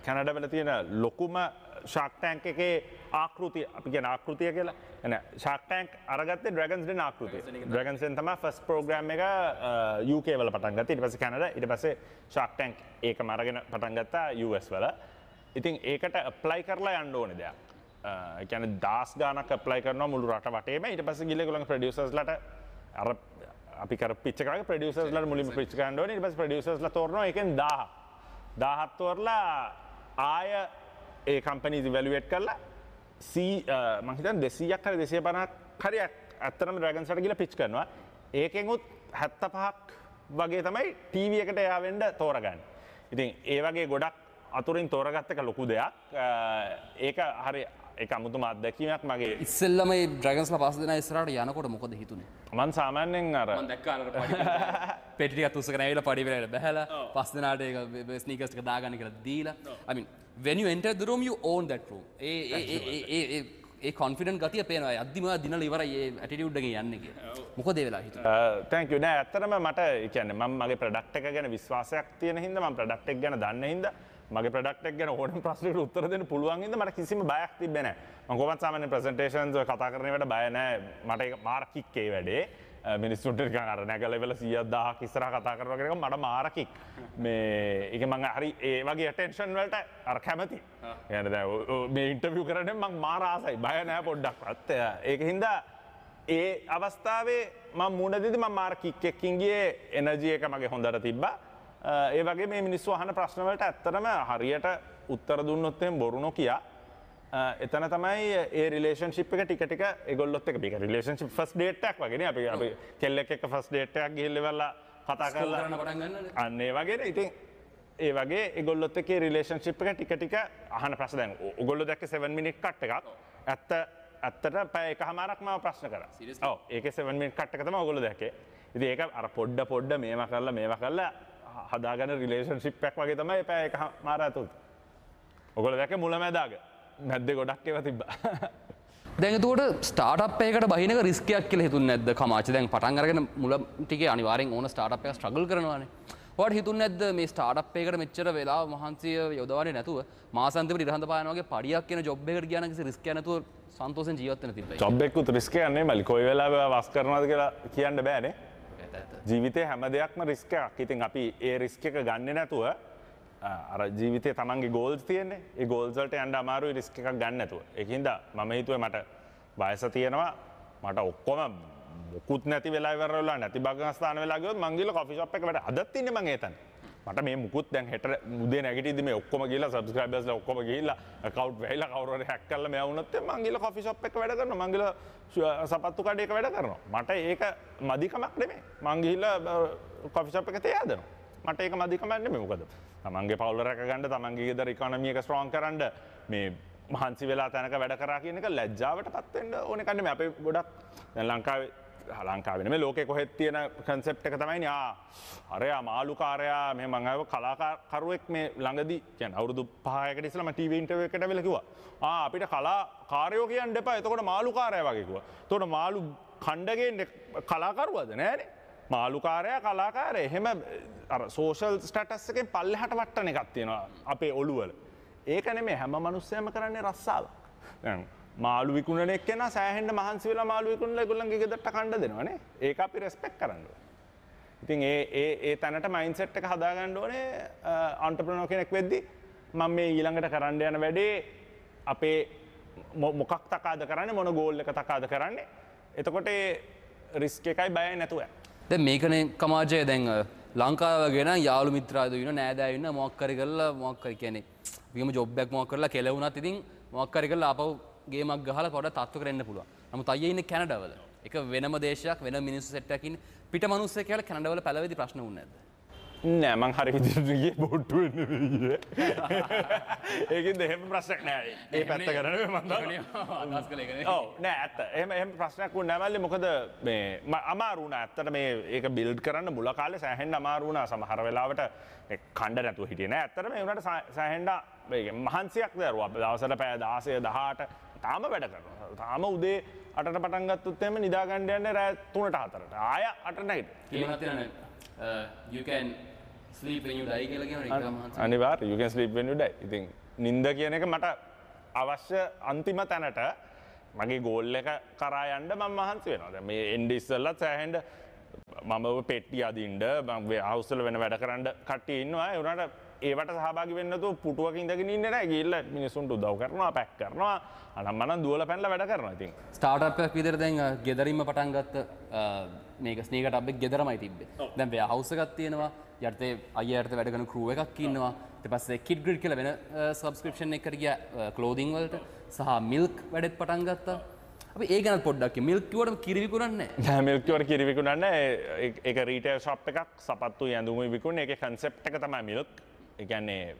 කැනඩා වල තියෙන ලොකුම ෂාක් ටැන්ක් එකේ ආකෘතිය, අපි කියන ආකෘතිය කියලා. එන ෂාක් ටැන්ක් අරගත්තේ ඩ්‍රැගන්ස් ඩෙන් ආකෘතිය. ඩ්‍රැගන්ස් ඩෙන් තමයි ෆස්ට් ප්‍රෝග්‍රෑම් එක UK වල පටන් ගත්තේ. ඊට පස්සේ කැනඩා, ඊට පස්සේ ෂාක් ටැන්ක් ඒකම අරගෙන පටන් ගත්තා US වල. ඉතින් ඒකට ඇප්ලයි කරලා යන්න ඕනේ දෙයක්. ඒ කියන්නේ දහස් ගාණක් ඇප්ලයි කරනවා මුළු රට වටේම. ඊට පස්සේ ගිහලා ඒගොල්ලන්ගේ ප්‍රොඩියුසර්ස්ලාට අර අපි කර පිච් එක වගේ ප්‍රොඩියුසර්ස්ලාට මුලින්ම පිච් කරන්න ඕනේ. ඊට පස්සේ ප්‍රොඩියුසර්ස්ලා තෝරනවා ඒකෙන් 1000. 1000ක් තෝරලා ආය ඒ කම්පැනිස් ඉවැලුවේට් කරලා මං හිතන්නේ 200ක් හරි 250ක් හරි ඇත්තටම ඩ්‍රැගන්ස් වලට ගිහලා පිච් කරනවා. ඒකෙන් උත් 75ක් වගේ තමයි ටීවී එකට එයා වෙන්න තෝරගන්නේ. ඉතින් ඒ වගේ ගොඩක් අතුරින් තෝරගත්ත එක ලොකු දෙයක්. ඒක හරි ඒක අමුතුම අත්දැකීමක් මගේ. ඉස්සෙල්ලම මේ ඩ්‍රැගන්ස්ලා පස් දෙනා ඉස්සරහට යනකොට මොකද හිතුනේ? මං සාමාන්‍යයෙන් අර මං දැක්කා අර පඩි පෙට්ටි ටිකක් උස්සගෙන ඇවිල්ලා පඩි වෙලාවට බැහැලා පස් දෙනාට ඒක ස්නීකර්ස් ටික දාගන්න කියලා දීලා. I mean when you enter the room you own that room. ඒ ඒ ඒ ඒ ඒ ඒ කොන්ෆිඩන්ට් ගතිය පේනවා. යද්දිම ඔයා දිනලා ඉවරයි ඒ ඇටිටියුඩ් එකෙන් යන්නේ කියලා. මොකද ඒ වෙලාව හිතුනේ? Thank you. නෑ ඇත්තටම මට ඒ කියන්නේ මම මගේ ප්‍රොඩක්ට් එක ගැන විශ්වාසයක් තියෙන හින්දා, මම ප්‍රොඩක්ට් එක ගැන දන්න හින්දා, මගේ ප්‍රොඩක්ට් එක ගැන ඕනම ප්‍රශ්නයකට උත්තර දෙන්න පුළුවන් හින්දා මට කිසිම බයක් තිබ්බේ නෑ. මම කොහොමත් සාමාන්‍ය ප්‍රසන්ටේෂන්ස් ඔය කතා කරන ඒවාට බය නෑ. මට ඒක මාර කික් ඒ වැඩේ. මිනිස්සුන්ට නිකන් අර නැගලා ඉවරලා 100ක් 1000ක් ඉස්සරහා කතා කරනවා කියන එක මට මාර කික්. මේ ඒක මං හරි ඒ වගේ ඇටෙන්ෂන් වලට අර කැමති. ඒ කියන්නේ දැන් මේ ඉන්ටර්විව් කරන්නේ මං මාර ආසයි. බය නෑ පොඩ්ඩක්වත්. ඒක හින්දා ඒ අවස්ථාවේ මං මුණ දෙද්දි මං මාර කික් එකකින් ගියේ. එනර්ජි එක මගේ හොඳට තිබ්බා. ඒ වගේ මේ මිනිස්සු අහන ප්‍රශ්න වලට ඇත්තටම හරියට උත්තර දුන්නොත් එහෙම බොරු නොකිය එතන තමයි ඒ රිලේෂන්ෂිප් එක ටික ටික ඒගොල්ලොත් එක්ක මේක රිලේෂන්ෂිප් ෆස්ට් ඩේට් එකක් වගේ නේ. අපි අපි කෙල්ලෙක් එක්ක ෆස්ට් ඩේට් එකක් ගිහිල්ලා ඉවරලා කතා කරලා කරන්න පටන් ගන්නනේ. අන්න ඒ වගේනේ. ඉතින් ඒ වගේ ඒගොල්ලොත් එක්ක ඒ රිලේෂන්ෂිප් එක ටික ටික අහන ප්‍රශ්න දැන් ඔයගොල්ලෝ දැක්කේ 7 මිනිට් කට් එකක්. ඇත්තට පැය එකහමාරක් මාව ප්‍රශ්න කරා. ඔව් ඒකේ 7 මිනිට් කට් එක තමයි ඔයගොල්ලෝ දැක්කේ. ඉතින් ඒක අර පොඩ පොඩ මේවා කරලා මේවා කරලා හදාගන්න රිලේෂන්ෂිප් එකක් වගේ තමයි පැය එකහමාර ඇතුළත. ඔයගොල්ලෝ දැක්කේ මුලැමැදාග. මැද්දේ ගොඩක් ඒවා තිබ්බා. දැන් එතකොට ස්ටාර්ට්අප් එකකට බහින එක රිස්ක් එකක් කියලා හිතුන්නේ නැද්ද කමාචි? දැන් පටන් අරගෙන මුල ටිකේ අනිවාර්යෙන් ඕන ස්ටාර්ට්අප් එකක් ස්ට්‍රගල් කරනවානේ. ඔයාලට හිතුන්නේ නැද්ද මේ ස්ටාර්ට්අප් එකකට මෙච්චර වෙලාව මහන්සිය යොදවන්නේ නැතුව මාසාන්තිමට ඉරහඳ පායන වගේ පඩියක් එන ජොබ් එකකට ගියා නම් කිසි රිස්ක් එකක් නැතුව සන්තෝෂෙන් ජීවත් වෙන්න තිබ්බයි? ජොබ් එකකුත් රිස්ක් එකක් නෙමෙයි මල්ලි. කොයි වෙලාවෙ ඔයා වස් කරනවද කියලා කියන්න බෑනේ. ජීවිතේ හැම දෙයක්ම රිස්ක් එකක්. ඉතින් අපි ඒ රිස්ක් එක ගන්නෙ නැතුව අර ජීවිතේ තමන්ගේ ගෝල්ස් තියෙන්නේ. ඒ ගෝල්ස් වලට යන්න අමාරුයි රිස්ක් එකක් ගන්න නැතුව. ඒක හින්දා මම හිතුවේ මට වයස තියෙනවා, මට ඔක්කොම මොකුත් නැති වෙලා ඉවර වෙලා නැති භාගස්ථාන වෙලා ගියොත් මං ගිහලා කොෆි ෂොප් එක වැඩ අදත් ඉන්නේ මං ඒ තැන. මට මේ මුකුත් දැන් හෙට උදේ නැගිටිද්දි මේ ඔක්කොම ගිහලා සබ්ස්ක්‍රයිබර්ස්ලා ඔක්කොම ගිහිල්ලා ඇකවුන්ට් වැහිලා කවුරු හරි හැක් කරලා මෙයා වුණොත් මං ගිහලා කොෆි ෂොප් එක වැඩ කරනවා. මං ගිහලා සපත්තු කඩේක වැඩ කරනවා. මට ඒක මදිකමක් නෙමෙයි. මං ගිහිල්ලා කොෆි ෂොප් එක තේ හදනවා. මට ඒක මදිකමක් නෙමෙයි. මොකද තමන්ගේ පවුල රැක ගන්න, තමන්ගේ ගෙදර ඉකොනොමි එක ස්ට්‍රෝං කරන්න මේ මහන්සි වෙලා තැනක වැඩ කරා කියන එක ලැජ්ජාවට පත් වෙන්න ඕන එකක් නෙමෙයි. අපේ ගොඩක් දැන් ලංකාවේ නෙමෙයි ලෝකේ කොහෙත් තියෙන කන්සෙප්ට් එක තමයි නේ අරයා මාළුකාරයා මෙහෙම මං ආව කලාකරුවෙක් මේ ළඟදී කියන්නේ අවුරුදු 5කට ඉස්සෙල්ලා මම ටීවී ඉන්ටර්විව් එකකට ඇවිල්ලා කිව්වා අපිට කලාකාරයෝ කියන්න එපා, එතකොට මාළුකාරයා වගේ කිව්වා. එතකොට මාළු කණ්ඩ ගේන්නේ කලාකරුවද නෑනේ. මාළුකාරයා කලාකාරයා එහෙම අර සෝෂල් ස්ටේටස් එකෙන් පල්ලෙහාට වට්ටන එකක් තියෙනවා අපේ ඔළුවල. ඒක නෙමෙයි හැම මිනිස්සයම කරන්නේ රස්සාවක්. දැන් මාළු විකුණන එක්කෙනා සෑහෙන්න මහන්සි වෙලා මාළු විකුණලා ඒගොල්ලන්ගේ ගෙදරට කණ්ඩ දෙනවනේ. ඒක අපි රෙස්පෙක්ට් කරන්න ඕනේ. ඉතින් ඒ ඒ ඒ තැනට මයින්ඩ්සෙට් එක හදාගන්න ඕනේ ඔන්ටර්ප්‍රෙනර් කෙනෙක් වෙද්දි මම මේ ඊළඟට කරන්න යන වැඩේ අපේ මොකක් තකාද කරන්නේ, මොන ගෝල් එක තකාද කරන්නේ. එතකොට ඒ රිස්ක් එකයි බයයි නැතුව. දැන් මේකනේ කමාජය දැන් ලංකාව වගේ නම් යාළු මිත්‍රාදෝ ඉන්න නෑදෑයෝ ඉන්න මොකක් හරි කරලා මොකක් හරි කියන්නේ විගම ජොබ් එකක් මොකක් කරලා කෙලවුණත් ඉතින් මොකක් හරි කරලා ආපහු ගේමක් ගහලා පොඩ තත්ත්ව කරන්න පුළුවන්. නමුත් අයියා ඉන්නේ කැනඩාවල. එක වෙනම දේශයක් වෙන මිනිස්සු සෙට් එකක් ඉන්නේ. පිට මිනිස්සු කියලා කැනඩා වල පළවෙනි ප්‍රශ්න වුණේ නැද්ද? නෑ මං හරි විදිහට ගියේ බෝට්ටු වෙන්න නෙවෙයි ගියේ. ඒකින්ද එහෙම ප්‍රශ්නයක් නෑ. ඒ පැත්ත ගැන නෙවෙයි මං දන්නවා. අදහස් කළේ ඒක නෙවෙයි. ඔව් නෑ ඇත්ත. එහෙම එහෙම ප්‍රශ්නයක් වුණේ නෑ මල්ලි. මොකද මේ අමාරු වුණා. ඇත්තට මේ ඒක බිල්ඩ් කරන්න මුල කාලේ සෑහෙන්න අමාරු වුණා. සමහර වෙලාවට කණ්ඩ නැතුව හිටියේ නෑ. ඇත්තටම ඒ වුණාට සෑහෙන්න මේ මහන්සියක් දරුවා. දවසට පැය 16 18 තාම වැඩ කරනවා. තාම උදේ 8ට පටන් ගත්තොත් එහෙම නිදා ගන්න යන්නේ රෑ 3ට 4ට. ආය 8ට නැගිටිනවා. You can sleep when you die කියලා කියනවා ඒක මහන්සි. අනිවාර්ය you can sleep when you die. ඉතින් නිින්ද කියන එක මට අවශ්‍ය අන්තිම තැනට මගේ ගෝල් එක කරා යන්න මම මහන්සි වෙනවා. දැන් මේ එන්න ඉස්සෙල්ලත් සෑහෙන්න මම ඔය පෙට්ටි අදින්න මම හවුස් වල වෙන වැඩ කරන්න කට්ටිය ඉන්නවා. ඒ වුණාට ඒවට සහභාගී වෙන්න නැතුව පුටුවක ඉඳගෙන ඉන්නේ නැහැ. ගිහිල්ලා මිනිස්සුන්ට උදව් කරනවා, පැක් කරනවා, අනම්මනම් දුවලා පැනලා වැඩ කරනවා. ඉතින් ස්ටාර්ට්අප් එකක් විදිහට දැන් ගෙදරින්ම පටන් ගත්ත මේක ස්නීකර් ටබ් එක ගෙදරමයි තිබ්බේ. දැන් වෙයා හවුස් එකක් තියෙනවා. යටතේ අයියා යටතේ වැඩ කරන ක්‍රූ එකක් ඉන්නවා. ඊට පස්සේ කිඩ් ග්‍රිඩ් කියලා වෙන සබ්ස්ක්‍රිප්ෂන් එකකට ගියා ක්ලෝදින් වලට සහ මිල්ක් වැඩෙත් පටන් ගත්තා. අපි ඒ ගැනත් පොඩ්ඩක් කියමු. මිල්ක් කිව්වටම කිරි විකුණන්නේ නැහැ. නෑ මිල්ක් කිව්වට කිරි විකුණන්නේ නැහැ. ඒක රීටේල් ෂොප් එකක්. සපත්තු ඇඳුම් විකුණන. ඒකේ කන්සෙප්ට් එක තමයි මිල්ක්. ඒ කියන්නේ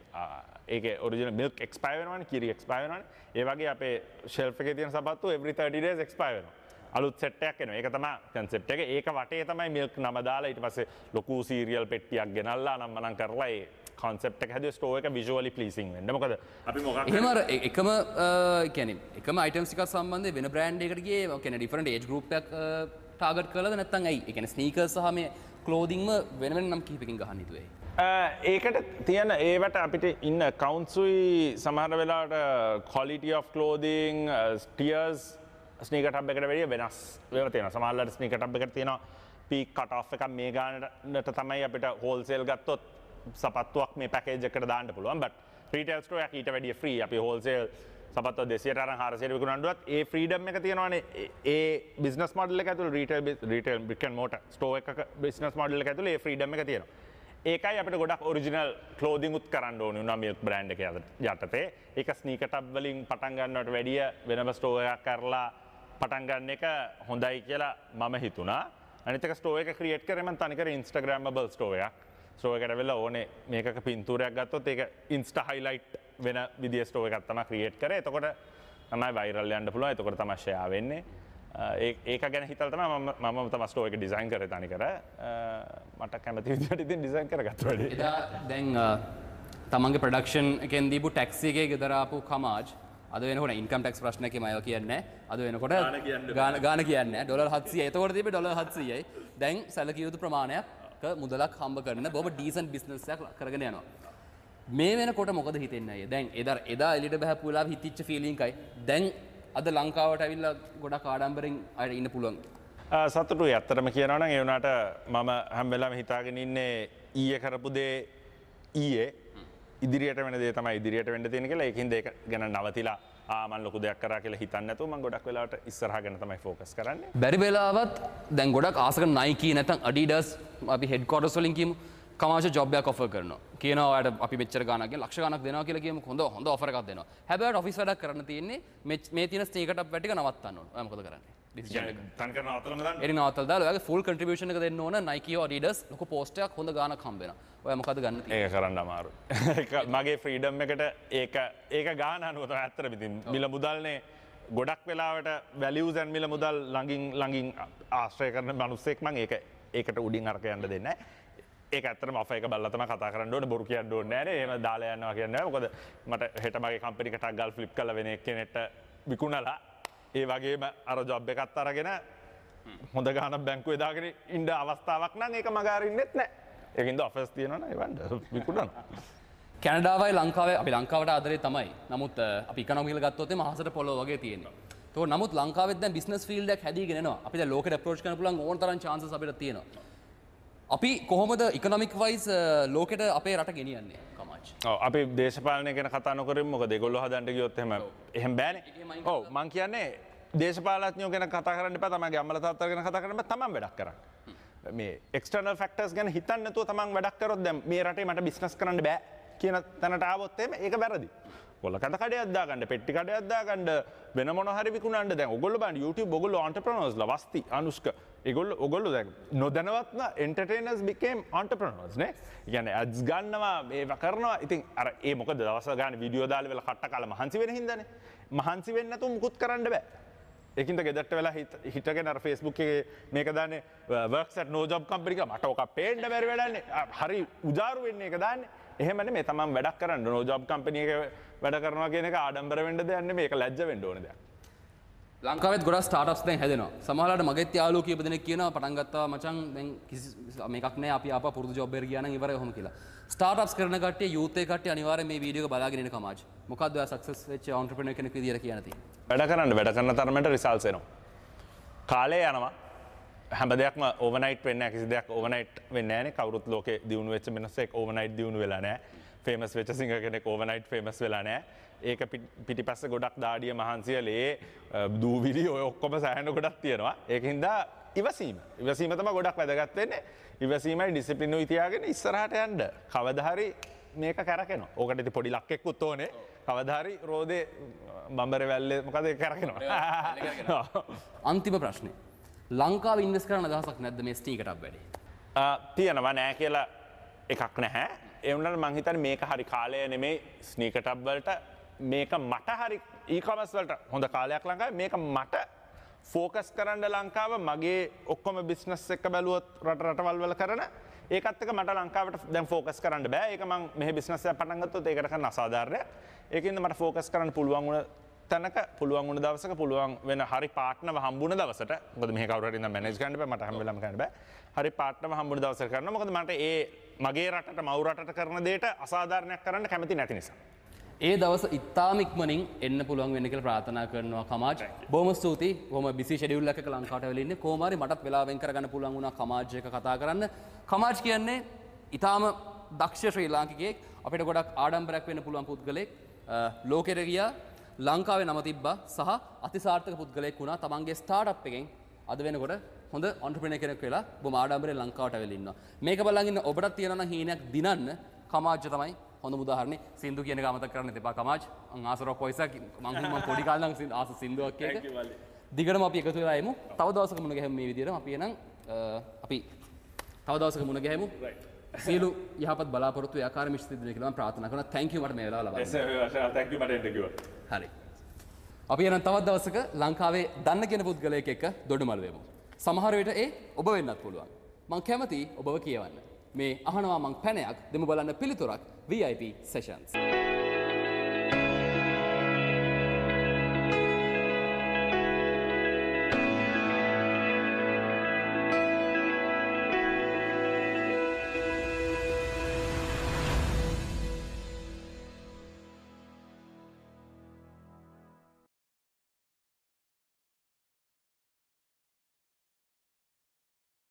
ඒකේ ඔරිජිනල් මිල්ක් එක්ස්පයර් වෙනවනේ, කිරි එක්ස්පයර් වෙනවනේ. ඒ වගේ අපේ ෂෙල්ෆ් එකේ තියෙන සපත්තු every 30 days expire වෙනවා. අලුත් සෙට් එකක් එනවා. ඒක තමයි කන්සෙප්ට් එක. ඒක වටේ තමයි මිල්ක් නම දාලා ඊට පස්සේ ලොකු සීරියල් පෙට්ටියක් ගෙනල්ලා අනම්මනම් කරලා ඒ කන්සෙප්ට් එක හැදුවේ ස්ටෝර් එක විෂුවලි ප්ලීසිං වෙන්න. මොකද අපි මොකක් එහෙම අර එකම කියන්නේ එකම අයිටම්ස් ටිකක් සම්බන්ධයෙන් වෙන බ්‍රෑන්ඩ් එකකට ගියේ ඒ කියන්නේ ඩිෆරන්ට් ඒජ් ගෲප් එකක් ටාගට් කරලාද නැත්නම් ඇයි? ඒ කියන්නේ ස්නීකර්ස් සහ මේ ක්ලෝදින්ග්ම වෙන වෙන නම් කිහිපකින් ගහන්න හිතුවේ. ඒකට තියෙන ඒවට අපිට ඉන්න ඇකවුන්ට්ස් උයි සමහර වෙලාවට quality of clothing tiers sneaker tub එකට වැඩිය වෙනස් ඒවා තියෙනවා. සමහර වෙලාවට ස්නීකර් ටබ් එකට තියෙනවා පීක් කට් ඔෆ් එකක් මේ ගානට තමයි අපිට හෝල්සේල් ගත්තොත් සපත්තුවක් මේ පැකේජ් එකට දාන්න පුළුවන්. බට් රීටේල් ස්ටෝර් එකක් ඊට වැඩිය ෆ්‍රී. අපි හෝල්සේල් සපත්තුව 200ට අරන් 400ට විකුණනවත් ඒ ෆ්‍රීඩම් එක තියෙනවානේ. ඒ බිස්නස් මොඩල් එක ඇතුළේ retail brick and motor Store එකක බිස්නස් මොඩල් එක ඇතුළේ ඒ ෆ්‍රීඩම් එක තියෙනවා. ඒකයි අපිට ගොඩක් ඔරිජිනල් ක්ලෝදින් උත් කරන්න ඕනේ වුණා මිල්ක් බ්‍රෑන්ඩ් එක යටතේ. ඒක ස්නීකර් ටබ් වලින් පටන් ගන්නවට වැඩිය වෙනම ස්ටෝර් එකක් කරලා පටන් ගන්න එක හොඳයි කියලා මම හිතුණා. අනිත් එක ස්ටෝර් එක ක්‍රියේට් කරේ මම තනිකර ඉන්ස්ටාග්‍රෑමබල් ස්ටෝර් එකක්. ස්ටෝර් එකට වෙලා ඕනේ මේකක පින්තූරයක් ගත්තොත් ඒක ඉන්ස්ටා හයිලයිට් වෙන විදිය ස්ටෝර් එකක් තමයි ක්‍රියේට් කරේ. එතකොට තමයි වයිරල් යන්න පුළුවන්. එතකොට තමයි ෂෙයා වෙන්නේ. ඒක ගැන හිතලා තමයි මම තමයි ස්ටෝර් එක ඩිසයින් කරේ තනිකර. මට කැමති විදියට ඉතින් ඩිසයින් කරගත්තා වැඩේ. එදා දැන් තමන්ගේ ප්‍රොඩක්ෂන් එකෙන් දීපු ටැක්සි එකේ ගෙදර ආපු කමාජ් අද වෙනකොට ඉන්කම් ටැක්ස් ප්‍රශ්නයක් මම ඒවා කියන්නේ නැහැ. අද වෙනකොට ගාන කියන්නේ නැහැ. ඩොලර් 700යි. එතකොට තිබ්බේ ඩොලර් 700යි. දැන් සැලකිය යුතු ප්‍රමාණයක් මුදලක් හම්බ කරන බොහොම ඩීසන්ට් බිස්නස් එකක් කරගෙන යනවා. මේ වෙනකොට මොකද හිතෙන්නේ අයියා? දැන් එදා එළියට බහපු වෙලාවෙ හිතිච්ච ෆීලිං එකයි දැන් අද ලංකාවට ඇවිල්ලා ගොඩක් ආඩම්බරෙන් අයට ඉන්න පුළුවන්. සතුටුයි. ඇත්තටම කියනවා නම් ඒ වුණාට මම හැම වෙලාවෙම හිතාගෙන ඉන්නේ ඊයේ කරපු දේ ඊයේ ඉදිරියට වෙන දේ තමයි ඉදිරියට වෙන්න තියෙන කියලා. ඒකින්ද ඒක ගැන නවතිලා මං ලොකු දෙයක් කරා කියලා හිතන්නේ නැතුව මං ගොඩක් වෙලාවට ඉස්සරහා ගැන තමයි ෆෝකස් කරන්නේ. බැරි වෙලාවත් දැන් ගොඩක් ආස කරන Nike නැත්නම් Adidas අපි හෙඩ් ක්වාටර්ස් වලින් කියමු කමාෂ ජොබ් එකක් ඔෆර් කරනවා. කියනවා ඔයාලට අපි මෙච්චර ගාණක් කියන ලක්ෂ ගාණක් දෙනවා කියලා කියමු. හොඳ ඔෆර් එකක් දෙනවා. හැබැයි ඔයාලට ඔෆිස් වැඩක් කරන්න තියෙන්නේ මේ තියෙන ස්නීකර් ටබ් වැඩ ටික නවත්තන්න ඕන. ඔයා මොකද කරන්නේ? ඩිසිෂන් එක. තනිකර නවත්තලම දාන්න. එරි නවත්තලා දාලා ඔයාගේ ෆුල් කන්ට්‍රිබියුෂන් එක දෙන්න ඕන Nike හෝ Adidas ලොකු පෝස්ට් එකක් හොඳ ගාණක් හම්බ වෙනවා. ඔයා මොකද ගන්න තියෙන්නේ? ඒක කරන්න අමාරුයි. ඒක මගේ ෆ්‍රීඩම් එකට ඒක ගාන අනුව තමයි ඇත්තටම ඉතින් මිල මුදල්නේ ගොඩක් වෙලාවට වැලියුස් ඇන්ඩ් මිල මුදල් ළඟින් ආශ්‍රය කරන මිනිස්සෙක් මං ඒකට උඩින් අරක යන්න දෙන්නේ නැහැ. ඒක ඇත්තටම ඔෆර් එක බලලා තමයි කතා කරන්න ඕනේ, බොරු කියන්න ඕනේ නෑනේ. එහෙම දාලා යනවා කියන්නේ නෑ. මොකද මට හෙට මගේ කම්පැනි එකට ගල් ෆ්ලිප් කරලා වෙන එක්කෙනෙක්ට විකුණලා ඒ වගේම අර ජොබ් එකත් අරගෙන හොඳ ගාණක් බැංකුවේ දාගෙන ඉන්න අවස්ථාවක් නම් ඒක මග අරින්නෙත් නෑ. ඒකින්ද ඔෆර්ස් තියෙනවා නම් ඒවන්ට විකුණනවා. කැනඩාවයි ලංකාවයි අපි ලංකාවට ආදරේ තමයි. නමුත් අපි ඉකොනොමි කියලා ගත්තොත් එimhe අහසට පොළොව වගේ තියෙනවා. ඒතකොට නමුත් ලංකාවෙත් දැන් බිස්නස් ෆීල්ඩ් එකක් හැදීගෙන එනවා. අපි දැන් ලෝකෙට ඇප්‍රෝච් කරන්න පුළුවන් ඕන තරම් චාන්සස් අපිට තියෙනවා. අපි කොහොමද ඉකොනොමික් වයිස් ලෝකෙට අපේ රට ගෙනියන්නේ කමාජ්? ඔව් අපි දේශපාලනය ගැන කතා නොකරමු. මොකද ඒගොල්ලෝ හදන්න ගියොත් එහෙම බෑනේ. ඔව් මං කියන්නේ දේශපාලඥයෝ ගැන කතා කරන්න එපා, තමන්ගේ අම්මලා තාත්තලා ගැන කතා කරන්න එපා, තමන් වැඩක් කරන්න. මේ එක්ස්ටර්නල් ෆැක්ටර්ස් ගැන හිතන්න නැතුව තමන් වැඩක් කරොත් දැන් මේ රටේ මට බිස්නස් කරන්න බෑ කියන තැනට ආවොත් එහෙම ඒක වැරදි. ඔයගොල්ලෝ කඳ කඩයක් දාගන්න, පෙට්ටි කඩයක් දාගන්න, වෙන මොන හරි විකුණන්න. දැන් ඔයගොල්ලෝ බලන්න YouTube ඔයගොල්ලෝ එන්ටර්ප්‍රෙනර්ස්ලා වස්ති අනුෂ්ක ඒගොල්ලෝ ඔයගොල්ලෝ දැන් නොදැනුවත්ම එන්ටර්ටේනර්ස් became entrepreneurs නේ. ඒ කියන්නේ ඇඩ්ස් ගන්නවා, ඒවා කරනවා. ඉතින් අර ඒ මොකද දවස් ගානේ වීඩියෝ දාලා වෙලා කට්ට කාලා මහන්සි වෙන හින්දානේ. මහන්සි වෙන්නේ නැතුව මුකුත් කරන්න බෑ. ඒකින්ද ගෙදරට වෙලා හිටගෙන අර Facebook එකේ මේක දාන්නේ works at no job company කියලා මට ඕක පේන්න බැරි වැඩන්නේ. හරි උජාරු වෙන්නේ ඒක දාන්නේ. එහෙම නෙමෙයි තමන් වැඩක් කරන්න no job company එකේ වැඩ කරනවා කියන එක ආඩම්බර වෙන්න දෙයක් නෙමෙයි. ඒක ලැජ්ජ වෙන්න ඕන දෙයක්. ලංකාවෙත් ගොඩක් ස්ටාර්ට්අප්ස් දැන් හැදෙනවා. සමහරවිට මගෙත් යාළුවෝ කීප දෙනෙක් කියනවා පටන් ගත්තා මචං දැන් කිසි මේකක් නෑ අපි ආපහු පුරුදු ජොබ් එකට ගියා නම් ඉවරයි ඔහොම කියලා. ස්ටාර්ට්අප්ස් කරන කට්ටිය යූත් එක කට්ටිය අනිවාර්යෙන් මේ වීඩියෝ එක බලාගෙන ඉන්න කමාජ්. මොකද්ද ඔයා සක්සස් වෙච්ච ඔන්ටර්ප්‍රෙනර් කෙනෙක් විදියට කියන්න තියෙන්නේ? වැඩ කරන්න වැඩ කරන තරමට රිසල්ට්ස් එනවා. කාලය යනවා. හැම දෙයක්ම ඕවර්නයිට් වෙන්නේ නැහැ. කිසි දෙයක් ඕවර්නයිට් වෙන්නේ නැහැ නේ. කවුරුත් ලෝකේ දියුණු වෙච්ච මිනිස්සෙක් ඕවර්නයිට් දියුණු වෙලා නැහැ. ෆේමස් වෙච්ච සිංගර් කෙනෙක් ඕවර්නයිට් ෆේමස් වෙලා නැහැ. ඒක පිටිපස්සේ ගොඩක් දාඩිය මහන්සිය ලේ දූවිලි ඔය ඔක්කොම සෑහෙන ගොඩක් තියෙනවා. ඒක හින්දා ඉවසීම. ඉවසීම තමයි ගොඩක් වැදගත් වෙන්නේ. ඉවසීමයි ඩිසිප්ලිනුයි තියාගෙන ඉස්සරහට යන්න. කවදා හරි මේක කැරකෙනවා. ඕකට ඉතින් පොඩි ලක් එක්කුත් ඕනේ. කවදා හරි රෝදේ බම්බරේ වැල්ලේ මොකද ඒක කැරකෙනවා. අන්තිම ප්‍රශ්නේ. ලංකාවේ ඉන්වෙස්ට් කරන්න අදහසක් නැද්ද මේ ස්නීකර් ටබ් වැඩේ? තියෙනවා නෑ කියලා එකක් නැහැ. ඒ වුණාට මං හිතන්නේ මේක හරි කාලය නෙමෙයි ස්නීකර් ටබ් වලට. මේක මට හරි ඊ-කොමර්ස් වලට හොඳ කාලයක් ලංකාවේ. මේක මට ෆෝකස් කරන්න ලංකාව මගේ ඔක්කොම බිස්නස් එක බැලුවොත් රට රටවල් වල කරන ඒකත් එක්ක මට ලංකාවට දැන් ෆෝකස් කරන්න බෑ. ඒක මං මෙහෙ බිස්නස් එකක් පටන් ගත්තොත් ඒකට කරන අසාධාරණයක්. ඒකින්ද මට ෆෝකස් කරන්න පුළුවන් වුණ තැනක පුළුවන් වුණ දවසක පුළුවන් වෙන හරි පාර්ට්නර්ව හම්බුණ දවසට, මොකද මෙහෙ කවුරු හරි ඉඳන් මැනේජ් කරන්න බෑ, මට හැම වෙලාවෙම කරන්න බෑ. හරි පාර්ට්නර්ව හම්බුණ දවසට කරනවා. මොකද මට ඒ මගේ රටට මව් රටට කරන දෙයට අසාධාරණයක් කරන්න කැමති නැති නිසා. ඒ දවස ඉතාම ඉක්මනින් එන්න පුළුවන් වෙන්න කියලා ප්‍රාර්ථනා කරනවා කමාජ්. බොහොම ස්තුතියි. බොහොම බිසි ෂෙඩියුල් එකක ලංකාවට ඇවිල්ලා ඉන්නේ. කොහොම හරි මටත් වෙලාව වෙන් කරගන්න පුළුවන් වුණා කමාජ් එක කතා කරන්න. කමාජ් කියන්නේ ඉතාම දක්ෂ ශ්‍රී ලාංකිකයෙක්. අපිට ගොඩක් ආඩම්බරයක් වෙන්න පුළුවන් පුද්ගලයෙක්. ලෝකෙට ගියා, ලංකාවේ නම තිබ්බා සහ අතිසාර්ථක පුද්ගලයෙක් වුණා. තමන්ගේ ස්ටාර්ට්අප් එකෙන් අද වෙනකොට හොඳ ඔන්ටර්ප්‍රෙනර් කෙනෙක් වෙලා බොහොම ආඩම්බරයෙන් ලංකාවට ඇවිල්ලා ඉන්නවා. මේක බලන් ඉන්න ඔබටත් තියෙනවා නම් හීනයක් දිනන්න කමාජ් තමයි හොඳම උදාහරණේ. සින්දු කියන එක අමතක කරන්න එපා කමාජ්. මං ආස රොක් වොයිස් එකක් මං පොඩි කාලේ නම් ආස සින්දුවක් ඒක. දිගටම අපි එකතු වෙලා එමු. තව දවසක මුණ ගැහෙමු මේ විදිහටම. අපි එහෙනම් අපි තව දවසක මුණ ගැහෙමු. සියලු යහපත් බලාපොරොත්තු ඒ ආකාරයෙන්ම ඉෂ්ට සිද්ධ වෙයි කියලා මම ප්‍රාර්ථනා කරනවා. Thank you මට මේ වෙලාව ලබා දුන්නා. Thank you මට එන්න කිව්වා. හරි. අපි එහෙනම් තවත් දවසක ලංකාවේ දන්න කියන පුද්ගලයෙක් එක්ක දොඩමළු වෙමු. සමහර විට ඒ ඔබ වෙන්නත් පුළුවන්. මං කැමතියි ඔබව කියවන්න. මේ අහනවා මං පැනයක් දෙමු බලන්න පිළිතුරක් VIP sessions.